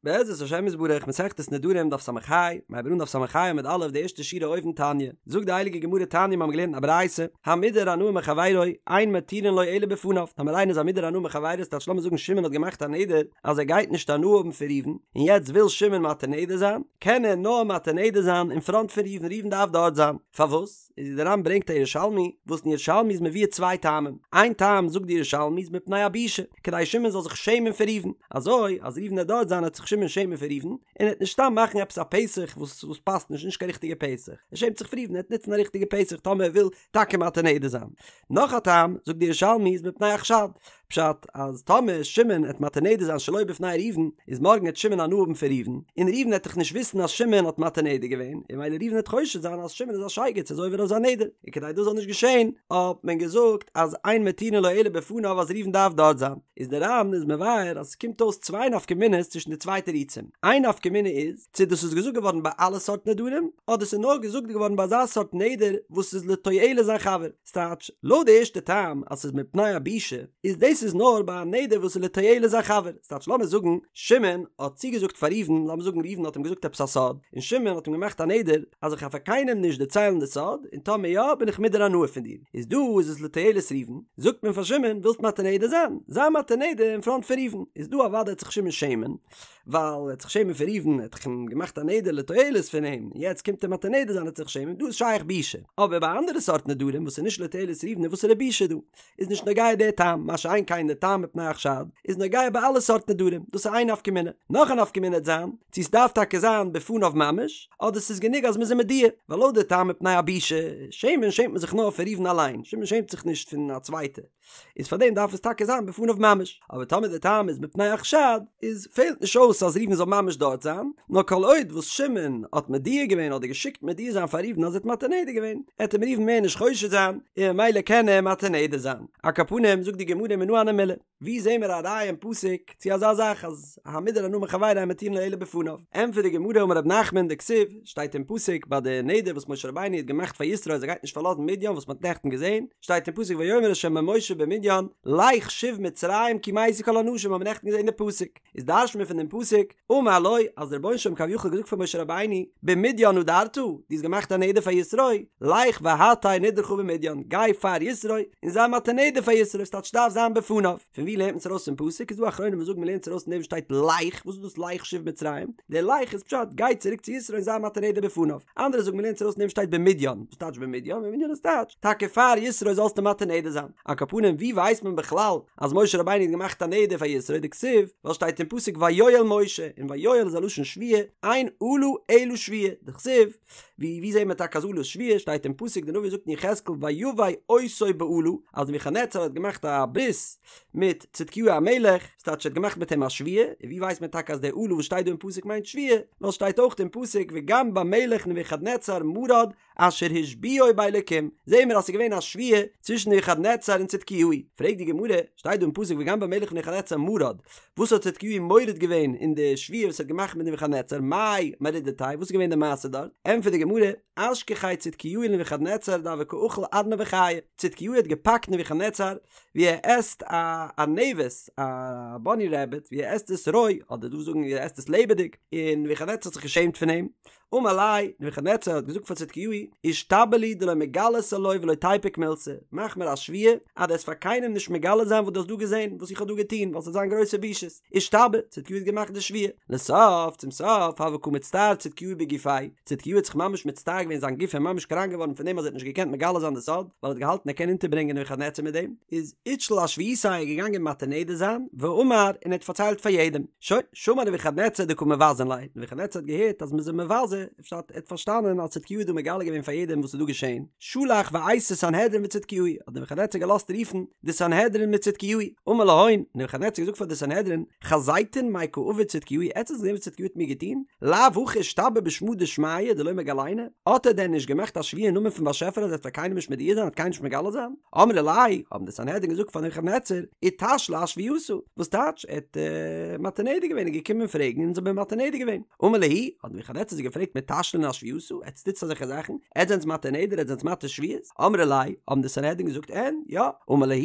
בעזרת השם יתברך מסכת נדרים דף ס"ה, מ'הייבט אן דף ס"ה עמוד א' די ערשטע שורה אויבן תניא, זאגט די הייליגע גמרא תניא מיר האבן געלערנט א ברייתא, המודר הנאה מחבירו, אין מתירין לו אלא בפניו, טאמער איינער איז א מודר הנאה מחבירו ס'טייטש לאמיר זאגן שמעון האט געמאכט א נדר אז ער גייט נישט הנאה האבן פון ראובן, און יעצט וויל שמעון מתיר נדר זיין, קען ער נאר מתיר נדר זיין אין פראנט פון ראובן, ראובן דארף דארט זיין, פארוואס? איז די ר"ן ברענגט א ירושלמי, וואס אין ירושלמי איז מבואר צוויי טעמים, איין טעם זאגט די ירושלמי איז מפני הבושה, כדי שמעון זאל זיך שעמען פון ראובן, אזוי אז ראובן וועט דארט זיין וועט זיך שמעון שעמען פון ראובן, און ער וועט נישט סתם מאכן עפעס א פתח וואס וואס פאסט נישט, נישט קיין ריכטיגע פתח, ער שעמט זיך פון ראובן, ער וועט נוצן א ריכטיגע פתח טאמער ער וויל טאקע מתיר נדר זיין. נאך א טעם זאגט די ירושלמי איז מפני החשד, פשט אז טאמער שמעון עט מתיר נדר זיין שלא בפני ראובן, איז מארגן עט שמעון הנאה האבן פון ראובן, און ראובן עט דאך נישט וויסן אז שמעון האט מתיר נדר געווען, און ממילא ראובן עט חושד זיין אז שמעון איז א שייגעץ איז עובר אויף זיין נדר, און כדי דאס זאל נישט געשען האט מען געזאגט אז אין מתירין לו אלא בפניו אז ראובן דארף דארט זיין, איז די ר"ן איז מבאר אז עס קומט אויס צוויי נפקא מינה'ס צווישן די צוויי תירוצים, איין נפקא מינה איז צו דאס איז געזאגט געווארן ביי אלע סארט נדרים, אדער ס'איז נאר געזאגט געווארן ביי אזא סארט נדר וואס איז לתועלת זיין חבר. ס'טייטש, לויט די ערשטע טעם אז ס'איז מפני הבושה, איז דאס איז נאר ביי א נדר וואס איז לתועלת זיין חבר, ס'טייטש לאמיר זאגן שמעון האט צוגעזאגט פאר ראובן, לאמיר זאגן ראובן האט אים געזאגט עפעס א סוד, און שמעון האט אים געמאכט א נדר אז איך גיי פאר קיינעם נישט דערציילן די סוד, און טאמער יא בין איך מודר הנאה פון דיר, איז דא איז עס לתועלת ראובן, זאגט מען פאר שמעון ווילסט מתיר נדר זיין, זיי מתיר נדר אין פראנט פון ראובן, איז דא אוודאי וועט זיך שמעון שעמען, ווייל ער האט זיך שעמען פון ראובן, ער האט דאך אים געמאכט א נדר לתועלת פון אים, און יעצט קומט ער מתיר נדר זיין ער וועט זיך שעמען, דא איז שייך בושה. אבער ביי אנדערע סארט נדרים וואס איז נישט לתועלת ראובן איז וואסערע בושה דא? איז נישט נוגע דער טעם, מה שאין כן דער טעם מפני החשד איז נוגע ביי אלע סארט נדרים, דאס איז איין נפקא מינה. נאך א נפקא מינה וועט זיין, צו ס'דארף טאקע זיין בפניו ממש, אדער ס'איז גענוג אז מ'איז אים מודיע, ווייל לויט די טעם מפני הבושה, שעמען שעמט מען זיך נאר פון ראובן אליין, שמעון שעמט זיך נישט פון א צווייטע. איז פאר דעם דארף עס טאקע זיין בפניו ממש, אבער טאמער די טעם איז מפני החשד, איז פעלט נישט אויס אז ראובן זאל ממש דארט זיין, נאר כל עוד וואס שמעון האט מודיע געווען אדער געשיקט מודיע זיין פאר ראובן אז ער האט מתיר נדר געווען, עט אים ראובן מער נישט חושד זיין, און ממילא קען ער מתיר נדר זיין. על כל פנים זאגט די גמרא מנא הני מילי, ווי זעהן מיר א ראיה אין פסוק צו אזא זאך אז המודר הנאה מחבירו אין מתירין לו אלא בפניו? ענטפערט די גמרא אמר רב נחמן דכתיב, שטייט אין פסוק ביי די נדר וואס משה רבינו האט געמאכט פאר יתרו אז ער גייט נישט פארלאזן מדין וואס מען האט נעכטן געזען, שטייט אין פסוק ויאמר ה' אל משה במדין לך שוב מצרים כי מתו כל האנשים האבן מיר נעכטן געזען די פסוק, איז דרש'ט מען פון דעם פסוק, אמר לו, אז דער רבונו של עולם כביכול האט געזאגט פאר משה רבינו, במדין נדרת, דו האסט געמאכט א נדר פאר יתרו, לך והתר נדרך במדין, גיי פאר יתרו און זיי מתיר נדר פאר יתרו, ס'טייטש דארף זיין בפניו. פון ווי לערנט מען עס ארויס פון פסוק? איז דא אחרונים וואס זאגן מ'לערנט עס ארויס פון דעם וואס שטייט לך, וואס איז דאס לך שוב מצרים? דער לך איז פשט גיי צוריק צו יתרו און זיי מתיר נדר בפניו. אנדערע זאגן מ'לערנט עס ארויס פון דעם וואס שטייט במדין, וואס טייטש במדין? במדין איז טייטש טאקע פאר יתרו זאלסטו מתיר נדר זיין. על כל פנים ווי ווייסט מען בכלל אז משה רבינו האט געמאכט א נדר פאר יתרו דכתיב ווייל שטייט אין פסוק ויואל משה און ויואל איז א לשון שבועה אין אלה אלא שבועה דכתיב ווי ווי זעהט מען טאקע אז אלה איז שבועה שטייט אין פסוק די נביא זאגט אין יחזקאל ויבא אותו באלה אז נבוכדנצר האט געמאכט א ברית מיט צדקיהו המלך ס'טייטש ער האט געמאכט מיט אים א שבועה און ווי ווייסט מען טאקע אז די אלה וואס שטייט דא אין פסוק מיינט שבועה ווייל שטייט אויך אין פסוק וגם במלך נבוכדנצר מרד אשר השביעו באלקים, זעהן מיר אז ס'איז געווען א שבועה צווישן נבוכדנצר און צדקיהו, פרעגט די גמרא, שטייט דא אין פסוק וגם במלך נבוכדנצר מרד, וואס האט צדקיהו מורד געווען אין די שבועה וואס ער האט געמאכט מיט נבוכדנצר, מאי מרידתיה, וואס איז געווען די מעשה דארט, ענטפערט די גמרא, אשכחיה צדקיהו לנבוכדנצר דהוה קא אכיל ארנבא חיא, צדקיהו האט געפאקט נבוכדנצר ווי ער עסט א ארנבת, א באני רעביט, ווי ער עסט עס רוי, אדער דא זאגן ווי ער עסט עס לעבעדיג, און נבוכדנצר האט זיך געשעמט פון אים, אמר ליה, נבוכדנצר האט געזאגט פאר צדקיהו, אישתבע לי דלא מגלית עילואי ולא תיפוק מילתא, מאך מיר א שבועה אז דו וועסט פאר קיינעם נישט מגלה זיין וואס דו האסט דא געזען, וואס איך האב דא געטון, ווייל ס'וועט זיין גרויסע בושות. אישתבע, צדקיהו האט געמאכט די שבועה. לסוף, צום סוף, הוה קא מצטער צדקיהו בגופיה, צדקיהו האט זיך ממש מצטער געווען זיין גוף איז ממש קראנק געווארן פון דעם אז ער האט נישט געקענט מגלה זיין די סוד, ווייל ער האט געהאלטן ער קען אונטערברענגען נבוכדנצר מיט דעם, איז אתשיל אשבועתיה געגאנגען מתיר נדר זיין, ואמר, און ער האט פארציילט פאר יעדעם. שוין. שמע נבוכדנצר דקא מבזין ליה, נבוכדנצר האט געהערט אז מ'איז אים מבזה, פשט ער האט פארשטאנען אז צדקיהו האט דא מגלה געווען פאר יעדעם וואס איז דא געשען, שלח ואייתי סנהדרין וצדקיהו, האט נבוכדנצר געלאזט רופן די סנהדרין מיט צדקיהו, אמר להון, נבוכדנצר האט געזאגט פאר די סנהדרין, חזיתון מאי קא עביד צדקיהו, עטס האטס געזען וואס צדקיהו האט מיר געטון? לאו הכי אשתבע בשמא דשמיא דלא מגליינא? האט ער דען נישט געמאכט א שבועה אין נאמען פון באשעפער אז ער וועט פאר קיינעם נישט מודיע זיין, וועט קיינעם נישט מגלה זיין? אמרי ליה, האבן די סנהדרין געזאגט פאר נבוכדנצר, אתשיל אשבועתא, וואס טייטש, ער האט מתיר נדר געווען, איז געקומען פרעגן און אונז האבן אים מתיר נדר געווען. אמר להו, האט נבוכדנצר זיי געפרעגט. געפרעגט מתשלין אשבועתא, עטס טוטס אזעלכע זאכן? עטס זענטס מתיר נדר? עטס זענטס מתיר שבועות? אמרי ליה, האבן די סנהדרין געזאגט אין, יא. אמר להו,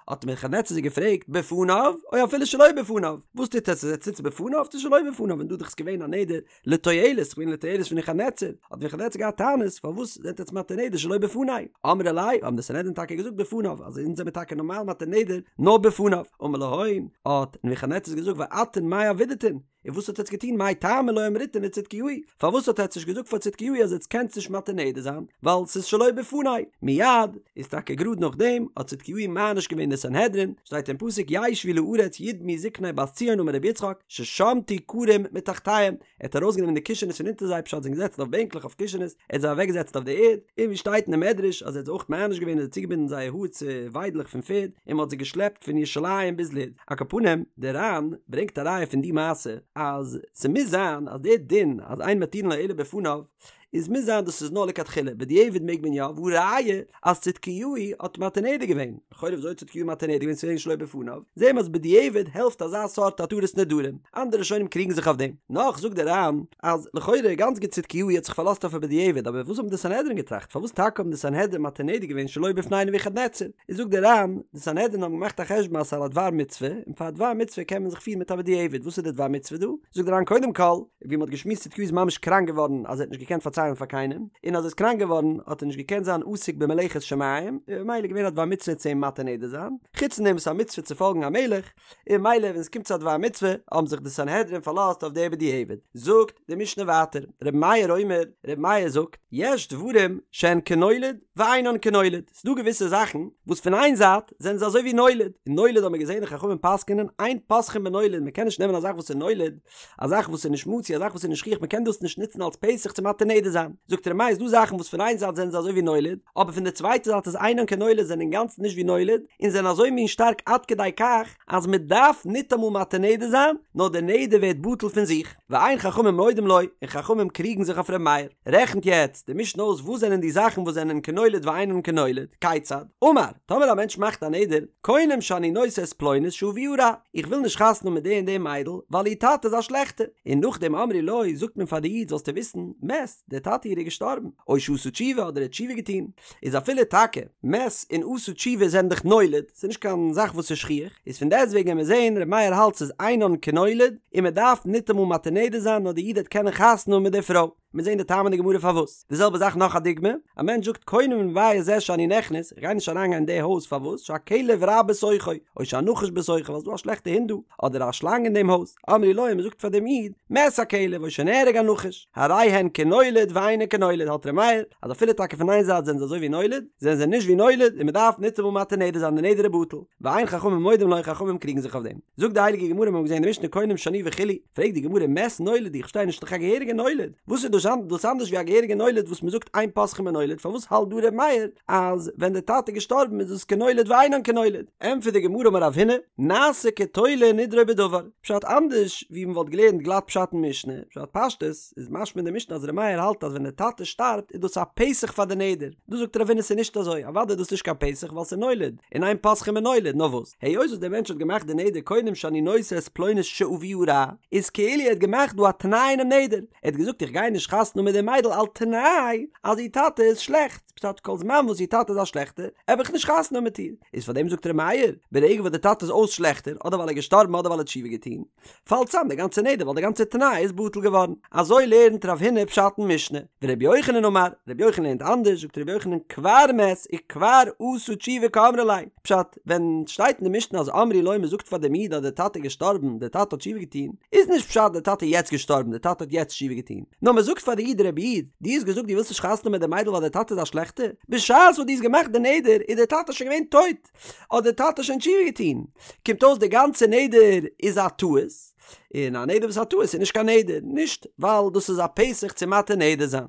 האט נבוכדנצר זיי געפרעגט, בפניו, או אפילו שלא בפניו? וואס טוט עטס? עטס טוטס בפניו צו שלא בפניו? און דא דאך איז געווען א נדר לתועלת, ס'איז געווען לתועלת פון נבוכדנצר, האט נבוכדנצר געהאט טענות, פארוואס זענט עטס מתיר נדר שלא בפני? אמרי ליה, האבן די סנהדרין טאקע געזאגט בפניו, אז אונז זעמיר טאקע נארמאל מתיר נדר נאר בפניו. אמר להון, האט נבוכדנצר געזאגט ואתון מאי עבידתון? און וואס האט עטץ געטון מאי טעמא לא אמריתון לצדקיהו? פארוואס האט עטץ נישט געזאגט פאר צדקיהו אז עטץ קענטס נישט מתיר נדר זיין ווייל ס'איז שלא בפני? מיד איז טאקע גראד נאכדעם האט צדקיהו מעניש געווען די סנהדרין, שטייט אין פסוק ישבו לארץ ידמו זקני בת ציון אמר רבי יצחק ששמטו כרים מתחתיהם, ער האט ארויסגענומען די קישענעס פון אונטער זיי פשט זיי זענען געזעצן אויף בענקלעך אויף קישענעס, ער האט זיי אוועקגעזעצט אויף די ערד, און ווי שטייט אין די מדרש אז ער האט זיי אויך מעניש געווען און זיי צוגעבינדן זייער האר צו וויידלעך פון פערד און מען האט זיי געשלעפט פון ירושלים ביז לוד. על כל פנים, דער ר"ן ברענגט א ראיה פון די מעשה אז ס'מוז זיין אז דער דין אז אין מתירין לו אלא בפניו איז מוז זיין דאס איז נאר לכתחילה, בדיעבד מעג מען יא, והא ראיה אז צדקיהו האט מתיר נדר געווען, לכאורה וויאזוי האט צדקיהו מתיר נדר געווען ס'איז געווען שלא בפניו, זעהן מיר אז בדיעבד העלפט אזא סארט התרת נדרים, אנדערע ראשונים קריגן זיך אויף דעם. נאך זאגט דער ר"ן אז לכאורה גאנץ גוט צדקיהו האט זיך פארלאזט אויף א בדיעבד אבער וואס האבן די סנהדרין געטראכט פארוואס טאקע האבן די סנהדרין מתיר נדר געווען שלא בפני נבוכדנצר? איז זאגט דער ר"ן, די סנהדרין האבן געמאכט א חשבון אז ס'איז א דבר מצוה, און פאר א דבר מצוה קען מען זיך פירן מיט א בדיעבד, וואס איז די דבר מצוה דא? זאגט דער ר"ן קודם כל, ווי מ'האט געשמועסט צדקיהו איז ממש קראנק געווארן אז ער האט נישט געקענט פארציילן פאר קיינעם, און אז ער איז קראנק געווארן האט ער נישט געקענט זיין עוסק במלאכת שמים, און ממילא איז געווען א דבר מצוה צו אים מתיר נדר זיין, חוץ פון דעם וואס ס'איז א מצוה צו פאלגן א מלך, און ממילא ווען עס קומט צו א דבר מצוה האבן זיך די סנהדרין פארלאזט אויף די בדיעבד. זאגט די משנה ווייטער, רבי מאיר אומר, רבי מאיר זאגט, יש דברים שהן כנולד ואינן כנולד, ס'דא געוויסע זאכן וואס פון איין זייט זענען זיי אזוי ווי נולד, און נולד האבן מיר געזען די חכמים פסק'ענען אין פותחין בנולד, מען קען נישט נעמען א זאך וואס איז נולד, א זאך וואס איז נישט מצוי, א זאך וואס איז נישט שכיח, מען קען דאס נישט נוצן אלס פתח צו מתיר נדר זיין. זאגט ר' מאיר, ס'דא זאכן וואס פון איין זייט זענען זיי אזוי ווי נולד, אבער פון די צווייטע זייט איז אינן כנולד זענען אינגאנצן נישט ווי נולד, און זענען אזוי מין שטארק עד כדי כך אז מען דארף ניטאמאל מתיר נדר זיין, נאר די נדר ווערט בטל פון זיך. ואין חכמים מודים לו, און חכמים קריגן זיך אויף ר' מאיר. רעכנט יעצט די משנה אויס וואס זענען די זאכן וואס זענען כנולד ואינן כנולד, כיצד? אמר, טאמער א מענטש מאכט א נדר, קונם שאני נושא את פלונית שאביה רע, איך וויל נישט חתונה האבן מיט די און די מיידל, ווייל איר טאטע איז א שלעכטער. און נאכדעם אמרו לו, זאגט מען פאר די איד, זאלסטו וויסן, מת, דער טאטע איר איז געשטארבן, או שעשה תשובה, אדער ער האט תשובה געטון, איז אפילו טאקע מת און עשה תשובה זענען דאך נולד, ס'איז נישט קיין זאך וואס איז שכיח, איז פון דעסטוועגן ווען מיר זעהן ר' מאיר האלט ס'איז אינן כנולד, און מען דארף ניטאמאל מתיר נדר זיין נאר די איד וועט קענען חתונה האבן מיט די פרוי. מיר זעהן די טעם אין די גמרא פארוואס. די זעלבע זאך נאך א דוגמא, א מענטש זאגט קונם בבית זה שאני נכנס, איך גיי נישט אריין גיין אין די הויז פארוואס, שהכלב רע בתוכו, או שהנחש בתוכו ווייל ס'איז דא א שלעכטע הונט דא, אדער א שלאנג אין דעם הויז, אמרו לו מען זאגט פאר דעם איד, מת הכלב או שנהרג הנחש, הרי הן כנולד ואינן כנולד האלט ר' מאיר אז אפילו טאקע פון איין זייט זענען זיי אזוי ווי נולד, זענען זיי נישט ווי נולד און מען דארף ניטאמאל מתיר נדר זיין די נדר איז בטל, ואין חכמים מודים לו חכמים קריגן זיך אויף דעם. זאגט די הייליגע גמרא מיר האבן געזען אין די משנה קונם שאני וכו', פרעגט די גמרא מת נולד איך פארשטיי נישט דאך א געהעריגע נולד, וואס איז דאס דאס אנדערש ווי א געהעריגע נולד וואס מען זאגט אין פותחין בנולד פארוואס האלט דא ר' מאיר אז ווען די טאטע איז געשטארבן איז דאס כנולד ואינן כנולד? ענטפערט די גמרא אמר רב הונא, נעשה כתולה נדרו בדבר, פשט אנדערש ווי מען וואלט געלערנט גלאט פשט אין משנה, פשט פשטות איז משמע אין די משנה אז ר' מאיר האלט אז ווען די טאטע שטארבט איז דאס א פתח פאר די נדר, דא זאגט רב הונא ס'איז נישט אזוי, אוודאי איז דאס נישט קיין פתח ווייל ס'איז נולד, און אין פותחין בנולד, נאר וואס? היות וואס דער מענטש האט געמאכט די נדר קונם שאני נושא את פלונית שאביה רע, איז כאילו ער האט געמאכט דא א תנאי אינעם נדר, ער האט געזאגט איך גיי נישט חתונה האבן מיט די מיידל על תנאי אז איר טאטע איז שלעכט, פשט כל זמן וואס איר טאטע איז א שלעכטער העב איך נישט חתונה האבן מיט איר, איז פאר דעם זאגט ר' מאיר, ברגע וואס די טאטע איז אויס שלעכטער, אדער ווייל ער איז געשטארבן אדער ווייל ער האט תשובה געטון, פאלט צאם די גאנצע נדר ווייל די גאנצע תנאי איז בטל געווארן. אזוי לערנט רב הונא פשט אין משנה. ורבי יוחנן אמר, רבי יוחנן לערנט אנדערש, זאגט רבי יוחנן כבר מת וכבר עשה תשובה קאמרי ליה, פשט, ווען שטייט אין די משנה אז אמרו לו מ'זאגט פאר דעם איד אז דער טאטע איז געשטארבן, דער טאטע האט תשובה געטון, איז נישט פשט דער טאטע איז יעצט געשטארבן, דער טאטע האט יעצט תשובה געטון, נאר מ'זאגט פאר די איד רבי איד, דו האסט געזאגט דו ווילסט נישט חתונה האבן מיט די מיידל ווייל דער טאטע איז א שלעכטער, בשעת וואס דו האסט געמאכט די נדר איז דער טאטע שוין געווען טויט, האט דער טאטע שוין תשובה געטון, קומט אויס די גאנצע נדר איז א טעות, און א נדר וואס איז א טעות איז נישט קיין נדר, נישט ווייל דאס איז א פתח צו מתיר נדר זיין.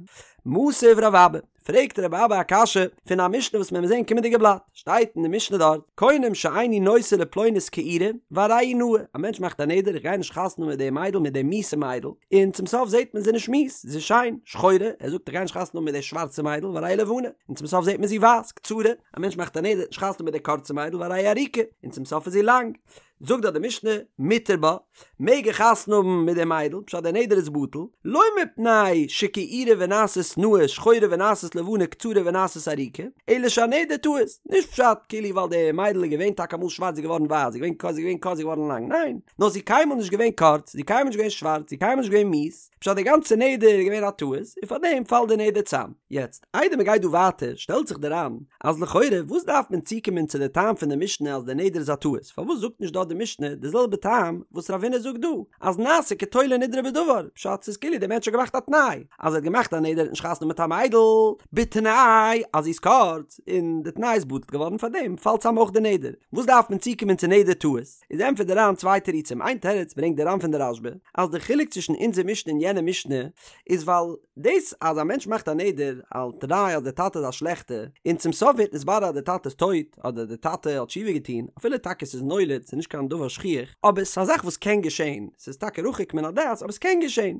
מתיב רב אבא, פרעגט רב אבא א קשיא פון א משנה וואס מיר וועלן זען קומענדיגע בלאט, שטייט אין די משנה דארט, קונם שאיני נושא לפלונית כעורה, והרי היא נאה, א מענטש מאכט א נדר איך גיי נישט חתונה האבן מיט די מיידל מיט די מיאוסע מיידל, און צום סוף זעט מען זי איז נישט מיאוס, זי איז שיין, שחורה, ער זאגט איך גיי נישט חתונה האבן מיט די שווארצע מיידל והרי היא לבנה, און צום סוף זעט מען זי ווייס, קצרה, א מענטש מאכט א נדר נישט חתונה מיט די קורצע מיידל והרי היא ארוכה, און צום סוף איז זי לאנג. זאגט דארט די משנה, מותר בה, מעג ער חתונה האבן מיט די מיידל, פשט דער נדר איז בטל, לא מפני שכעורה ונעשית נאה שחורה ונעשית לבנה קצרה ונעשית ארוכה, אלא שהנדר טעות, נישט פשט כאילו ווייל די מיידל איז געווען טאקע אמאל שווארץ זי איז געווארן ווייס, זי איז געווען קורץ זי איז געווען קורץ זי איז געווארן לאנג, ניין, נאר זי איז קיינמאל נישט געווען קורץ, זי איז קיינמאל נישט געווען שווארץ, זי איז קיינמאל נישט געווען מיאוס, פשט די גאנצע נדר איז געווען א טעות, און פארדעם פאלט די נדר צאם. יעצט, איידער מען גייט דא ווייטער, שטעלט זיך די ר"ן, אז לכאורה וואס דארף מען צוקומען צו די טעם פון די משנה אז די נדר איז א טעות, פארוואס זאגט נישט דארט די משנה די זעלבע טעם וואס רב הונא זאגט דא, אז נעשה כתולה נדרו בדבר, פשט ס'איז כאילו די מענטש האט געמאכט א תנאי, אז ער האט געמאכט א נדר ער האט נישט חתונה מיט א מיידל, בתנאי אז זי איז קורץ, און די תנאי איז בטל געווארן פארדעם פאלט צאם אויך די נדר, וואס דארף מען צוקומען צו נדר טעות? איז ענטפערט די ר"ן צוויי תירוצים, איין תירוץ ברענגט די ר"ן פון די רשב"א, אז די חילוק צווישן אונזער משנה און יענע משנה איז ווייל דאס אז א מענטש מאכט א נדר על תנאי אז די טאטע איז א שלעכטע, און צום סוף ווערט נתברר אז די טאטע איז טויט אדער די טאטע האט תשובה געטון, אפילו טאקע ס'איז נולד, ס'איז נישט קיין דבר שכיח, אבער ס'איז א זאך וואס קען געשען, ס'איז טאקע רחוק מן הדעת אבער ס'קען געשען,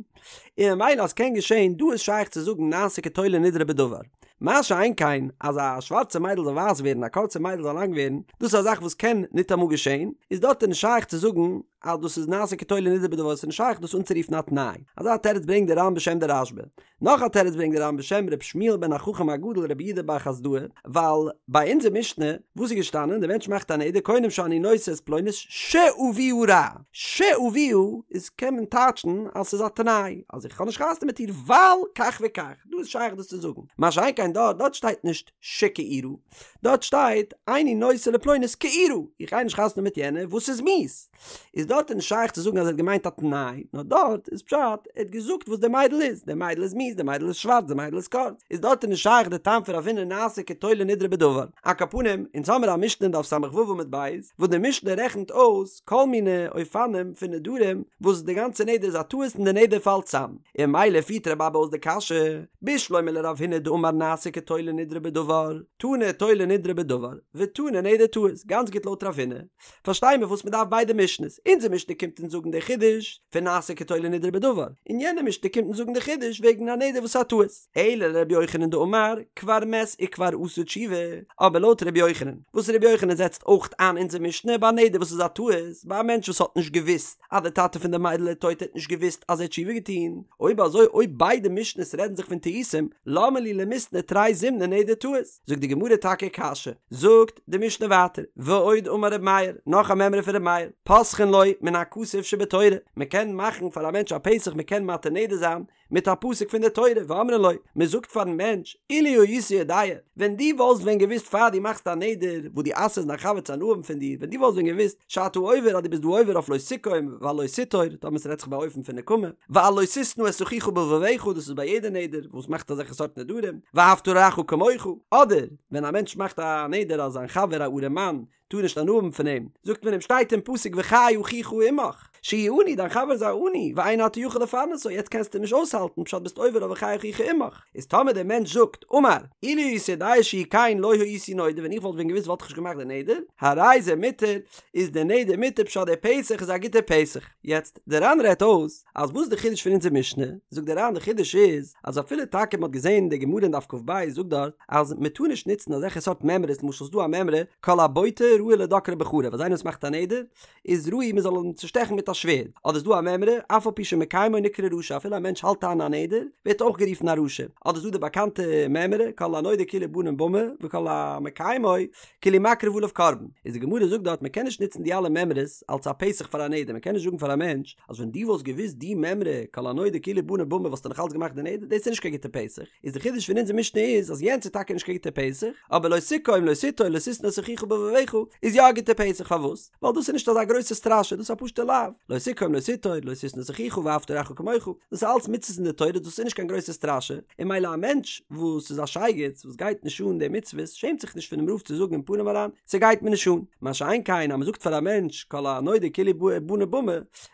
און ממילא אז ס'קען געשען דא איז שייך צו זאגן נעשה כתולה נדרו בדבר. מה שאין כן אז א שווארצע מיידל זאל ווייס ווערן א קורצע מיידל זאל לאנג ווערן, דאס איז א זאך וואס קען ניטאמאל געשען, איז דארט איז נישט שייך צו זאגן אז דאס איז נעשה כתולה נדרו בדבר, ס'איז נישט שייך דאס אנצורופן א תנאי. אזא תירוץ ברענגט דער ר"ן בשם דער רשב"א. נאך א תירוץ ברענגט דער ר"ן בשם ר' שמואל בן החכם הגדול רבי יהודה בר חסדאי, ווייל ביי אונזער משנה וואס איז געשטאנען, דער מענטש מאכט א נדר קונם שאני נושא את פלונית שאביה רע, שאביה איז קען מען טייטשן אז ס'איז א תנאי אז איך האב נישט חתונה מיט איר ווייל כך וכך, דא איז שייך דאס צו זאגן, מה שאין כן דארט, דארט שטייט נישט שכעורה, דארט שטייט איני נושא לפלונית כעורה, איך גיי נישט חתונה מיט יענער וואס איז מיאוס, איז דארט איז נישט שייך צו זאגן אז ער האט געמיינט א תנאי, נאר דארט איז פשט ער האט געזאגט וואס די מיידל איז, די מיידל איז מיאוס, די מיידל איז שווארץ, די מיידל איז קורץ, איז דארט איז נישט שייך די טעם פון רב הונא נעשה כתולה נדרו בדבר. על כל פנים, אונז האמיר א משנה אין דף ס"ו עמוד ב', וואס די משנה רעכנט אויס כל מיני אופנים פון נדרים וואס די גאנצע נדר איז א טעות און די נדר פאלט צאם, און ממילא פירט רבי אבא אויס די קשיא, בשלמא לרב הונא דאמר נעשה כתולה נדרו בדבר, תנא תולה נדרו בדבר, ותנא נדר טעות, גאנץ גוט לויט רב הונא, פארשטיי מיר וואס מען דארף ביידע משנה'ס, אונזער משנה קומט אונז זאגן די חידוש פון נעשה כתולה נדרו בדבר, און יענע משנה קומט אונז זאגן די חידוש וועגן א נדר וואס איז א טעות. אלא לרבי יוחנן דאמר כבר מת וכבר עשה תשובה, אבער לויט רבי יוחנן, וואס רבי יוחנן זעצט אויך איין אונזער משנה ביי א נדר וואס איז א טעות, ביי א מענטש וואס האט נישט געוואוסט אז די טאטע פון די מיידל איז טויט ער האט נישט געוואוסט אז ער האט תשובה געטון, אויב אזוי אויב ביידע משנה'ס רעדן זיך פון טעותים, למה לי למיתני תרי זימני נדר טעות? זאגט די גמרא טאקע קשיא, זאגט די משנה ווייטער, ועוד אמר ר' מאיר, נאך א מימרא פון ר' מאיר, פותחין לו מן הכתוב שבתורה, מען קען מאכן פאר א מענטש א פתח מען קען מתיר נדר זיין מיט א פסוק פון די תורה, ואומרין לו, מען זאגט פארן מענטש, אילו היית יודע, ווען דו וואלסט ווען געוואוסט פאר דו מאכסט א נדר, וואס דו אסר'סט דיין חבר צו הנאה האבן פון דיר, ווען דו וואלסט ווען געוואוסט, שאתה עובר אז דו ביסט דא עובר אויף לא תקום ועל לא תטור, טאמער ס'רעדט זיך ביי אופן פון נקמה, ועל לא תשנא את אחיך בלבבך, דאס איז ביי יעדע נדר וואס מאכט אזעלכע סארט נדרים, ואהבת לרעך כמוך, אדער ווען א מענטש מאכט א נדר אז זיין חבר א ארעם מאן טאר נישט הנאה האבן פון אים, זאגט מען אים שטייט אין פסוק וחי אחיך עמך, שהוא עני, דיין חבר איז א עני, ואין אתה יכול לפרנסו, יעצט קענסטו אים נישט אויסהאלטן, פשט ביסט עובר אויף וחי אחיך עמך, איז טאמער דער מענטש זאגט, אמר, אילו הייתי יודע שהוא כן לא הייתי נודר, ווען איך וואלט ווען געוואוסט וואלט איך נישט געמאכט די נדר, הרי זה מותר, איז די נדר מותר פשט דער פתח איז א גוטער פתח. יעצט, דער ר"ן רעדט אויס, אז וואס די חידוש פון אונזער משנה, זאגט דער ר"ן די חידוש איז, אז אפילו טאקע מען האט געזען אין די גמרא אין דף כ"ב זאגט דארט, אז מען טאר נישט נוצן אזעלכע סארט מימרות, למשל ס'דא א מימרא, כל הבוטה ראוי לדוקרו בחרב, אז איינער וואס מאכט א נדר, איז ראוי מען זאל אים צושטעכן מיט א שווערד, אדער איז דא א מימרא, אף על פי שמקיימו נקרא רשע, אפילו א מענטש האלט איין א נדר, ווערט אויך גערופן א רשע, אדער איז דא די באקאנטע מימרא, כל הנודר כאילו בנה במה, וכל המקיימו, כאילו מקריב עליו קרבן, איז די גמרא זאגט דארט מען קען נישט נוצן די אלע מימרות אלס א פתח פאר א נדר, מען קען נישט זאגן פאר א מענטש אז ווען דו וואלסט געוואוסט די מימרא כל הנודר כאילו בנה במה וואלסטו נאך אלץ געמאכט די נדר, דאס איז נישט קיין גוטע פתח, איז די חידוש פון אונזער משנה איז אז יענץ איז טאקע נישט קיין גוטע פתח, אבער לא תקום לא תטור לא תשנא את אחיך בלבבך איז יא א גוטע פתח פארוואס? ווייל דאס איז נישט אזא גרויסע סטראשע דאס איז א פשוטע לאו, לא תקום לא תטור לא תשנא את אחיך ואהבת לרעך כמוך, דאס איז אלץ מצוות אין די תורה דאס איז נישט קיין גרויסע סטראשע, און ממילא א מענטש וואס איז א שייגעץ וואס גייט נישט אן די מצוות שעמט זיך נישט פונעם רב צו זאגן אין פנים אריין ס'גייט מיר נישט אן, מה שאין כן אז מ'זאגט פאר א מענטש כל הנודר כאילו בנה במה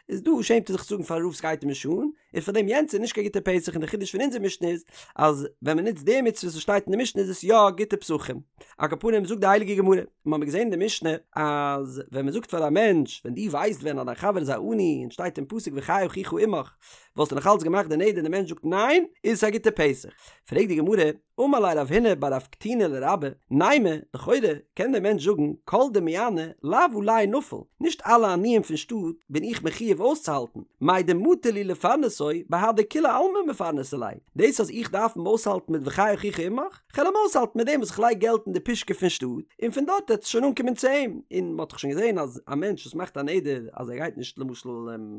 איז דא שעמט ער זיך צו זאגן פארן רב ס'גייט אים נישט אן, און פאר דעם יענץ איז נישט קיין גוטע פתח און די חידוש פון אונזער משנה איז אז ווען מען נוצט די מצוות וואס שטייט אין די משנה איז עס יא גוטע פתחים. על כל פנים זאגט די הייליגע גמרא, מיר האבן געזען אין די משנה אז ווען מען זאגט פאר א מענטש ווען דו ווייסט ווען אז דיין חבר איז א עני און שטייט אין פסוק וחי אחיך עמך. וואלסטו נאך אלץ געמאכט די נדר און די מענטש זאגט ניין, איז עס א גוטע פתח. פרעגט די גמרא, אמר ליה רב הונא בר רב קטינא לרבה, נימא, לכאורה קען דער מענטש זאגן, כל דמיעני לאו עלי נפיל, נישט אלע עניים פון שטאט בין איך מחיוב אויסצוהאלטן, מאי דמטי לי לפרנסו בהדי כולי עלמא מפרנסי ליה, דאס אז איך דארף אים אויסהאלטן מיט וחי אחיך עמך, כ'על אים אויסהאלטן מיט דעם וואס כ'לייג געלט אין די פושקע פון שטאט, און פון דארט וועט עס שוין אנקומען צו אים, און מ'האט דאך שוין געזען אז א מענטש וואס מאכט א נדר אז ער גייט נישט למשל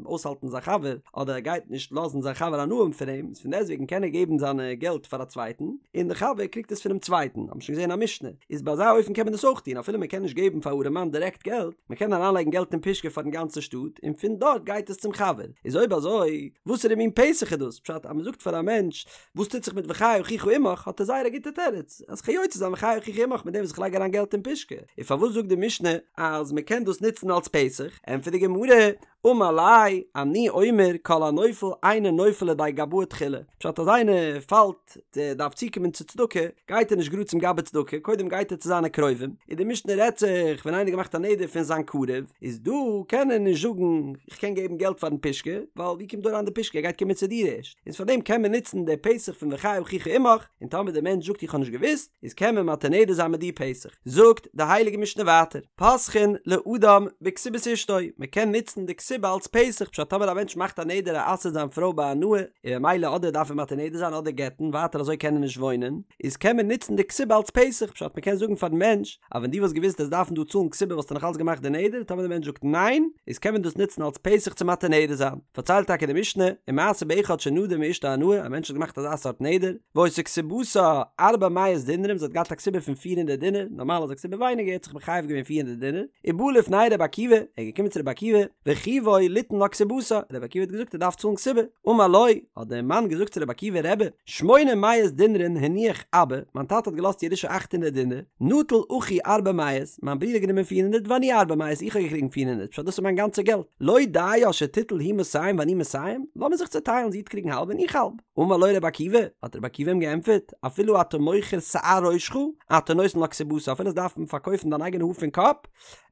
אויסהאלטן זיין חבר, אדער ער גייט נישט לאזן זיין חבר הנאה האבן פון אים, איז פון דעסטוועגן קען ער געבן זיינע געלט פאר א צווייטן, און די חבר קריגט עס פונעם צווייטן, האט מען שוין געזען א משנה, איז ביי אזא אופן קען מען דאס אויך טון, אפילו מ'קען נישט געבן פאר ארעמאן דירעקט געלט, מ'קען אריינלייגן געלט אין פושקע פארן גאנצן שטאט, און פון דארט גייט עס צום חבר, איז אויב אזוי, וואסערע מין פתח איז דאס? פשט אז מ'זאגט פאר א מענטש וואס טוט זיך מיט וחי אחיך עמך האט ער זייער א גוטע תירוץ אז כ'קען יוצא זיין וחי אחיך עמך מיט דעם וואס איך לייג אריין געלט אין פושקע און פארוואס זאגט די משנה אז מען קען דאס נוצן אלס פתח ענטפערט די גמרא אמר ליה אני אומר כל הנופל אינו נופל לידי גבאי תחילה פשט אז איינער פאלט דארף צוקומען צו צדקה גייט ער נישט גראד צום גבאי צדקה קודם גייט ער צו זיינע קרובים און די משנה רעדט זיך ווען איינער האט געמאכט א נדר פון זיין קרוב איז דא קען ער נישט זאגן איך קען געבן געלט פארן פושקע ווייל ווי קומט דא אריין די פושקע ער גייט קומען צו דיר ערשט איז פאר דעם קען מען נוצן די פתח פון וחי אחיך עמך, און טאמער די מענטש זאגט איך האב נישט געוואוסט, איז קען מען מתיר נדר זיין מיט די פתח. זאגט די הייליגע משנה ווייטער, פותחין לאדם בכתובת אשתו, מען קען נוצן די כתובה אלס פתח, פשט טאמער א מענטש מאכט א נדר ער אסר'ט זיין פרוי בהנאה, און ממילא אדער דארף ער מתיר נדר זיין אדער גט'ן, ווייטער אזוי קען ער נישט וואוינען, איז קען מען נוצן די כתובה אלס פתח, פשט מען קען זאגן פארן מענטש, אז ווען דו וואלסט געוואוסט וועסט דארפן דא צאלן כתובה וואלסטו נאך אלץ געמאכט די נדר, טאמער די מענטש זאגט ניין, איז קען מען דאס נוצן אלס פתח צו מתיר נדר זיין. פארציילט טאקע די משנה, ומעשה באחד שנדר מאשתו הנאה, א מענטש האט געמאכט אזא סארט נדר, והיתה כתובתה ארבע מאות דינרים, זי האט געהאט א כתובה פון פיר הונדערט דינר, נארמאל איז א כתובה ווייניגער, ער האט זיך מחייב געווען פיר הונדערט דינר, ובא לפני רבי עקיבא, ער איז געקומען צו רבי עקיבא, וחייבו ליתן לה כתובתה, רבי עקיבא האט געזאגט ער דארף צאלן כתובה, אמר לו, האט דער מאן געזאגט צו רבי עקיבא, רבי, שמונה מאות דינרין הניח אבא, מיין טאטע האט געלאזט ירושה אכט הונדערט דינר, נטל אחי ארבע מאות, מיין ברודער האט גענומען פיר הונדערט ואני ארבע מאות, איך האב געקריגן פיר הונדערט, פשט דאס איז מיין גאנצע געלט, לא דיה שתיטול היא מאתים ואני מאתים, לאמיר זיך צעטיילן זי וועט קריגן האלב און איך האלב. אמר לו רבי עקיבא, האט רבי עקיבא אים געענטפערט, אפילו אתה מוכר שער ראשך, אתה נותן לה כתובתה, אפילו וועסט דארפן פארקויפן דיין אייגענע האר פון קאפ,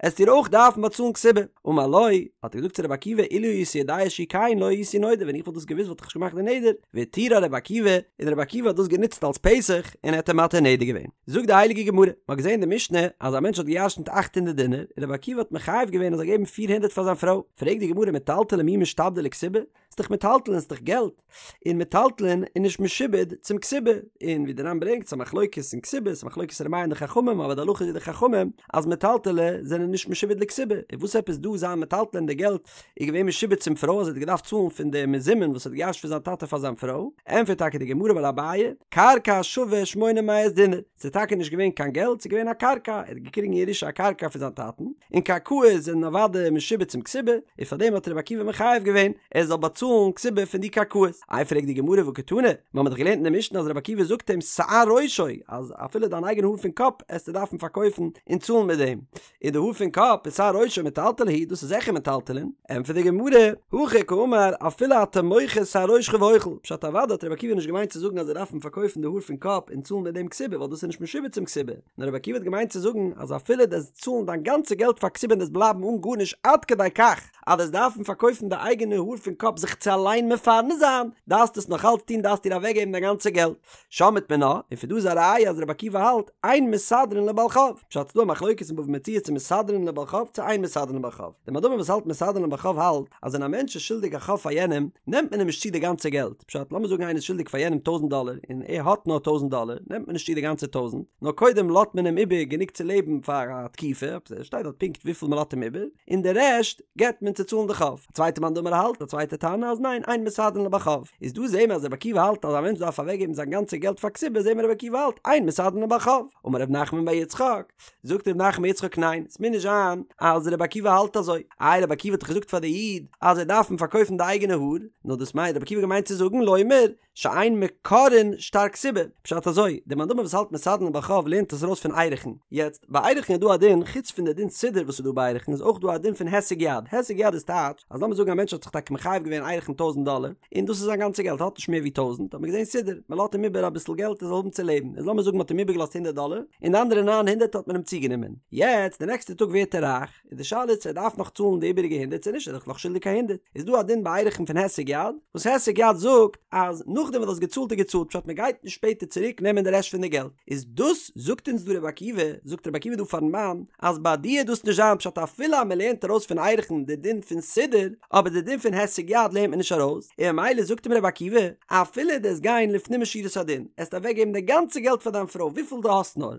עסט איר אויך דארפן באצאלן כתובה. אמר לו, האט ער געזאגט צו רבי עקיבא, אילו הייתי יודע שהוא כן לא הייתי נודר, ווען איך וואלט דאס געוואוסט וואלט איך נישט געמאכט די נדר, והתירה רבי עקיבא, און רבי עקיבא האט דאס גענוצט אלס פתח, און ער האט אים מתיר נדר געווען. זאגט די הייליגע גמרא, מען האט געזען אין די משנה אז א מענטש האט גע'ירש'נט אכט הונדערט דינר, און רבי עקיבא האט מחייב געווען ער זאל געבן פיר הונדערט פאר זיין פרוי, פרעגט די גמרא מטלטלי מי משתעבדי לכתובה? ס'איז דאך מטלטלין, ס'איז דאך געלט, און מטלטלין איז נישט משועבד צום כתובה, און ווי די ר"ן ברענגט ס'איז א מחלוקת אין כתובה, ס'איז א מחלוקת ר' מאיר און די חכמים, אבער די הלכה איז ווי די חכמים אז מטלטלי זענען נישט משועבד לכתובה, און וואס עפעס דא זיין מטלטלין די געלט איז געווען משועבד צום פרוי אז ער האט געדארפט צאלן פון די מזומן וואס ער האט געירש'ט פון זיין טאטע פאר זיין פרוי, ענטפערט טאקע די גמרא אמר אביי, קרקע שווה שמונה מאות דינר, ס'איז טאקע נישט געווען קיין געלט, ס'איז געווען א קרקע, ער האט געקריגן ירושה א קרקע פון זיין טאטן, און קרקעות זענען אוודאי משועבד צום כתובה, און פאר דעם האט רבי עקיבא מחייב געווען ער זאל באצאלן כתובה פון די קרקעות. איי פרעגט די גמרא והא קתני, מיר האבן דאך געלערנט אין די משנה אז רבי עקיבא זאגט אים שער ראשו, אז אפילו דיין אייגענע האר פון קאפ עסטו דארפן פארקויפן און צאלן מיט דעם, און די האר פון קאפ איז שער ראשו מטלטלי הוא, דאס איז זיכער מטלטלין, ענטפערט די גמרא, הכי קאמר אפילו אתה מוכר שער ראשך ואוכל, פשט אוודאי האט רבי עקיבא נישט געמיינט צו זאגן אז זיי דארפן פארקויפן די האר פון קאפ און צאלן מיט דעם כתובה ווייל דאס איז נישט משועבד צום כתובה, נאר רבי עקיבא האט געמיינט צו זאגן אז אפילו דו עסט צאלן דיין גאנצע געלט פאר כתובה און דו'סט בלייבן אן גארנישט עד כדי כך אז דו'סט דארפן פארקויפן די אייגענע האר פון קאפ זיך צו אליין מפרנס זיין, דארפסט עס נאך אלץ טון דארפסט איר אוועקגעבן דיין גאנצע געלט. שמעת מינה, און פון דא איז א ראיה אז רבי עקיבא האלט, אין מסדרין לבעל חוב. פשט ס'דא א מחלוקת אין בבא מציעא צו מסדרין לבעל חוב צו אין מסדרין לבעל חוב. דער מאן דאמר וואס האלט מסדרין לבעל חוב האלט אז ווען א מענטש איז שולדיג א חוב פאר יענעם, נעמט מען אים נישט צו די גאנצע געלט. פשט, לאמיר זאגן איינער איז שולדיג פאר יענעם טויזנט דאלער און ער האט נאר טויזנט דאלער, נעמט מען נישט צו די גאנצע טויזנט, נאר קודם לאזט מען אים איבער גענוג צו לעבן פאר א תקופה, עס שטייט דארט פונקט וויפיל מען לאזט אים איבער, און די רעשט געבט מען צו צאלן די חוב. א צווייטע מאן דאמר האלט, א צווייטע תנא, אז ניין, אין מסדרין לבעל חוב. איז דא זעהן מיר אז רבי עקיבא האלט אז א מענטש דארף אוועקגעבן זיין גאנצע געלט פאר כתובה זעהן מיר רבי עקיבא האלט אין מסדרין לבעל חוב. אמר ר' נחמן בר יצחק, זאגט ר' נחמן בר יצחק ניין, ס'מוז נישט זיין אז רבי עקיבא האלט אזוי. איי רבי עקיבא האט דאך געזאגט פאר די איד אז ער דארף אים פארקויפן די אייגענע האר, נאר דאס מיינט רבי עקיבא געמיינט צו זאגן לומר שאין מקרעין שטר כתובה, פשט אזוי, דער מאן דאמר וואס האלט מסדרין לבעל חוב לערנט עס ארויס פון ערכין, יעצט, ביי ערכין איז דא א דין, חוץ פון די דין סידור וואס איז דא ביי ערכין איז אויך דא א דין פון הישג יד, הישג יד איז טייטש, אז לאמיר זאגן א מענטש האט זיך טאקע מחייב געווען ערכין טויזנט דאלער, און דאס איז זיין גאנצע געלט, ער האט נישט מער ווי טויזנט, האט מען געזען סידור, מען לאזט אים איבער אביסל געלט ער זאל האבן צו לעבן, איז לאמיר זאגן מען האט אים איבערגעלאזט הונדערט דאלער, און די אנדערע ניין הונדערט האט מען אים צוגענומען, יעצט די נעקסטע טאג ווערט ער רייך, איז די שאלה צו ער דארף נאך צאלן די איבעריגע הונדערט. הונדרעט צו נישט, ער איז דאך נאך שולדיג א הונדרעט, איז דא א דין ביי ערכין פון הישג יד, וואס הישג יד זאגט אז נאכדעם וואס דו האסט געצאלט איז געצאלט, פשט מען גייט נישט שפעטער צוריק נעמען די רעשט פון די געלט, איז דאס זאגט אונז דא רבי עקיבא, זאגט רבי עקיבא דא פארן מאן, אז ביי דיר וועט דאס נישט זיין פשט אפילו אז מען לערנט ארויס פון ערכין די דין פון סודר, אבער די דין פון הישג יד לערנט מען נישט ארויס, און ממילא זאגט אים רבי עקיבא, אפילו דו עסט גיין לפנים משורת הדין, עסט אוועק געבן די גאנצע געלט פאר דיין פרוי וויפיל דו האסט נאר,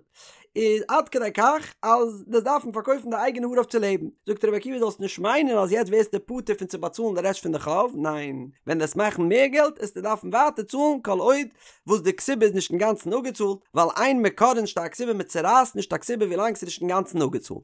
איז עד כדי כך אז דו עסט דארפן פארקויפן די אייגענע האר אויף צו לעבן, זאגט רבי עקיבא זאלסט נישט מיינען אז יעצט ווערסטו פטור פון צו באצאלן די רעשט פון די חוב, ניין, ווען דו עסט מאכן מער געלט עסטו דארפן ווייטער צאלן כל עוד וואס די כתובה איז נישט אינגאנצן אפגעצאלט, ווייל אין מקרעין שטר כתובה מען צורייסט נישט א כתובה ווילאנג ס'איז נישט אינגאנצן אפגעצאלט.